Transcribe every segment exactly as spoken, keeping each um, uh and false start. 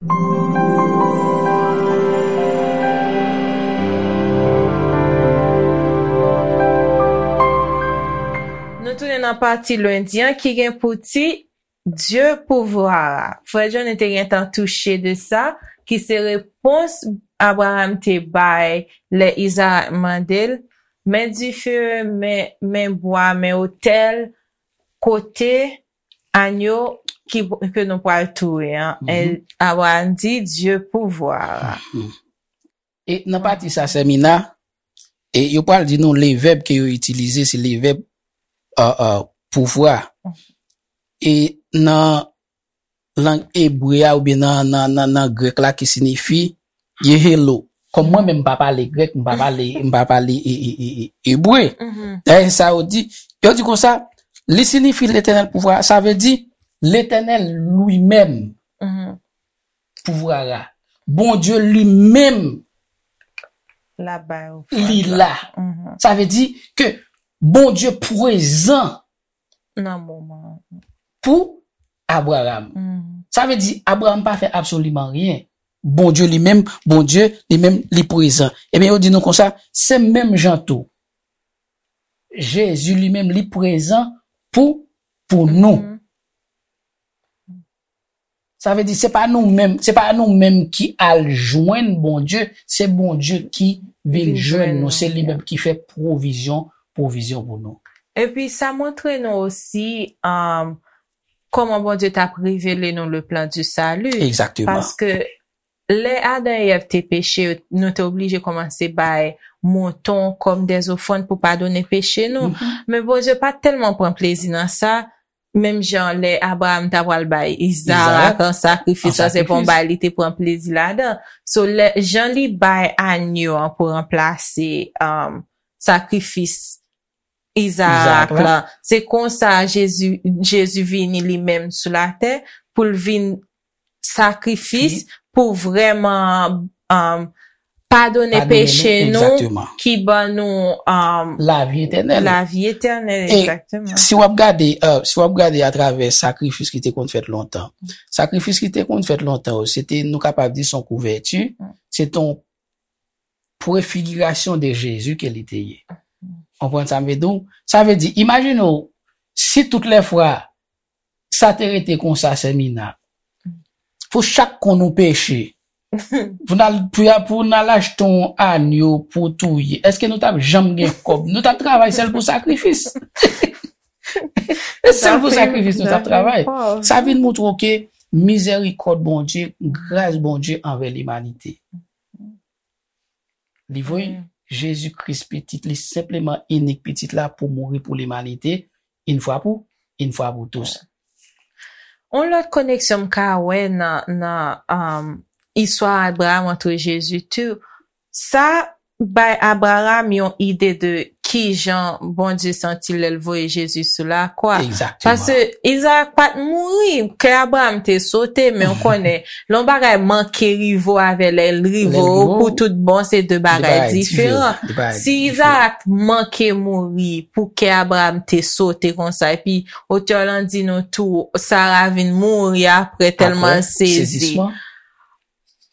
Nou tounen nan pati lendi an ki gen pou tit Dieu pouvoir. Frè John te gentan touche de sa, ki se repons Abraham te bay lè Izarak mande l, men dife, men, men bwa, men otèl, kote anyo ki, ke nou pral touye an. Abraham di, Dieu pouvoir. E nan pati sa, Semina, e yo pral di nou le vèb ke yo itilize, se le vèb uh, uh, pouvwa. E nan lang ebre a oubyen nan, nan, nan, nan grèk la ki sinifi yehelo. Kòm mwen menm m pa pale grèk, m pa pale, m pa pale e, e, e, e, ebre. Dayè sa yo di, yo di konsa, li sinifi Letènèl pouvwa, sa vle di Letènèl li menm pouvwa a. Bondye li menm La bay ou li la. Sa vle di ke Bondye prezan nan moman. Pou Abraham. Sa vle di Abraham pa fè absoliman ryen. Bondye li menm, Bondye li menm li prezan. Ebyen yo di nou konsa, se menm jan tou. Jezi li menm li prezan pou pou nou. Sa vle di se pa nou menm, se pa nou menm ki al jwenn Bondye, se Bondye ki vin jwenn nou, se li menm ki fè pwovizyon, pwovizyon pou nou. Epi sa montre nou osi um, kòman Bondye t ap revele nou le plan du salut. Egzakteman. Paske lè Adan e Èv te peche, nou te oblije kòmanse bay mouton kòm dèzofrann pou padone peche nou. Men Bondye pa t tèlman pran plezi nan sa, menm jan lè Abraham ta pral bay Izarak an sakrifis, sa se pa yon bagay li te pran plezi ladan. So, lè, jan li bay anyo an pou ranplase um, sakrifis Izarak la, se konsa Jezi, Jezi vini li menm sou latè pou l vin sakrifis pou vrèman um, padone peche nou ki ban nou um, lavi etènèl. Lavi etènèl, egzakteman. Si w ap gade, uh, si w ap gade atravè sakrifis ki te konn fèt lontan, sakrifis ki te konn fèt lontan, se te, nou kapab di, se yon kouvèti, se te yon prefigirasyon de Jezi ke li te ye. Konprann sa m vle di w? Sa vle di, imajine w, si tout lè fwa sa te rete konsa, Semina, pou chak kon nou peche, pou n al pou, pou n al achte yon anyo pou touye, èske nou t ap janm gen kòb? Nou t ap travay sèl pou sakrifis. E sèl pou sakrifis nou t ap travay. Sa vin montre w ke mizèrikòd Bondye, gras Bondye anvè limanite. Li voye Jezi Kris pitit li, senpleman inik pitit la pou mouri pou limanite, yon fwa pou, yon fwa pou tous. Yon lòt koneksyon m ka wè nan, nan um, istwa Abraham antre Jezi tou, sa bay Abraham yon ide de kijan Bondye santi lè l voye Jezi sou lakwa. Paske Izarak pa t mouri, kè Abraham te sote, men w konnen, lè yon bagay manke rive w avè lè l rive w pou tout bon, se de bagay diferan. Si Izarak manke mouri pou kè Abraham te sote konsa, epi otè lan di nou tou, Sara vin mouri apre tèlman l sezi.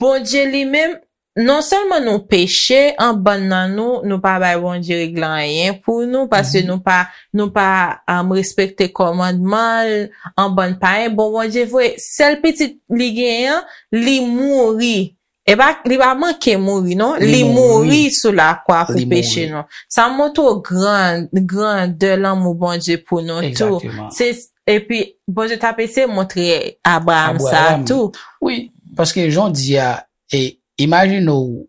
Bondye li menm, non sèlman nou peche, an bann nan nou, nou pa bay Bondye regle anyen pou nou, paske nou pa, nou pa um, respekte kòmandman l, an bann payen. Bon, Bondye voye sèl pitit li genyen an, li mouri. E pa, li pa manke mouri, non. Li mouri sou lakwa pou peche nou. Sa montre w gran, grandè lanmou Bondye pou nou tou. Se, epi, Bondye t ap eseye montre Abraham sa tou. Wi, paske jan w di a, e, imajine w,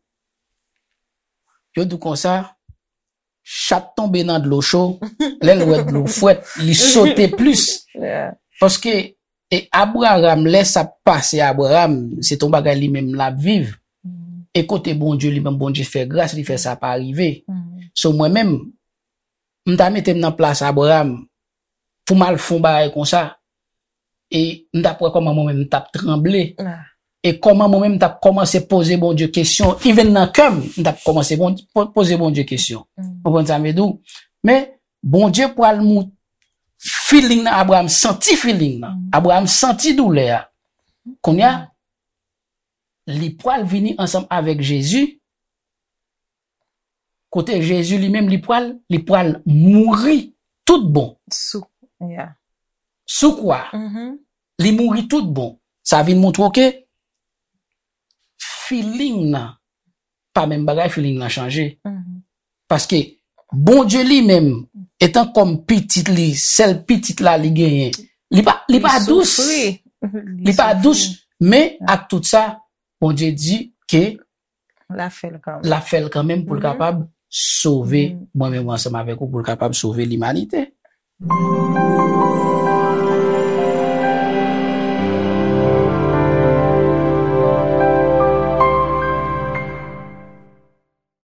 yo di w konsa, chat tonbe nan dlo cho, lè l wè dlo frèt, li sote plis. Paske, e Abraham, lè sa pase Abraham, se t yon bagay li menm l ap viv. E kote Bondye, li menm Bondye fè gras, li fè sa pa rive. So mwen menm, m ta mete m nan plas Abraham, pou m al fè yon bagay konsa, e m t ap wè kòman mwen menm m t ap tranble. E kòman mwen menm m t ap kòmanse poze Bondye kesyon, even nan kè m, m t ap kòmanse poze Bondye kesyon. Konprann sa m vle di w? Men, Bondye pral mou feeling nan, Abraham santi feeling nan. Abraham santi doulè a. Kounye a, Li pral vini ansanm avèk Jezi. Kote Jezi li menm, li pral, li pral mouri tout bon. Sou, yeah. Sou kwa, Mhm, li mouri tout bon. Sa vin montre w ke feeling nan, pa menm bagay, feeling nan chanje. mhm. Paske Bondye li menm, etan kòm pitit li, sèl pitit la li genyen, li pa, li pa dous. Soufri. Li pa dous, men ak tout sa, Bondye di ke L ap fè l kanmenm. L ap fè l kanmenm pou l Mhm. kapab sove Mhm. mwen menm ansanm avèk ou, pou l kapab sove limanite.